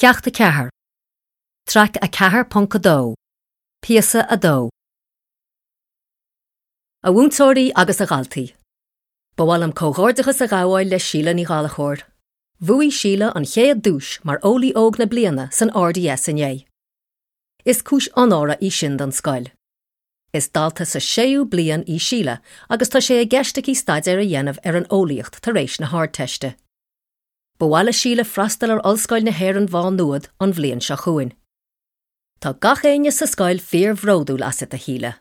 Ceacht 4, Traic 4.2, Píosa 2. A mhúinteoirí agus a dhaltaí. Ba mhaith liom comhghairdeachas a ghabháil le Síle Ní Ghallchóir. Bhuaigh Síle an chéad duais mar Eolaí Óg na Bliana san RDS inné. Is cúis onóra í sin don scoil. Is dalta sa séú bliain í Síle agus tá sé i gceist aici staidéar a dhéanamh ar an eolaíocht tar éis na hArdteiste. Ba mhaith le Síle freastal ar Ollscoil na hÉireann Mhá Nuad an bhliain seo chugainn. Tá gach éinne sa scoil fíor-bhródúil asat, a Shíle.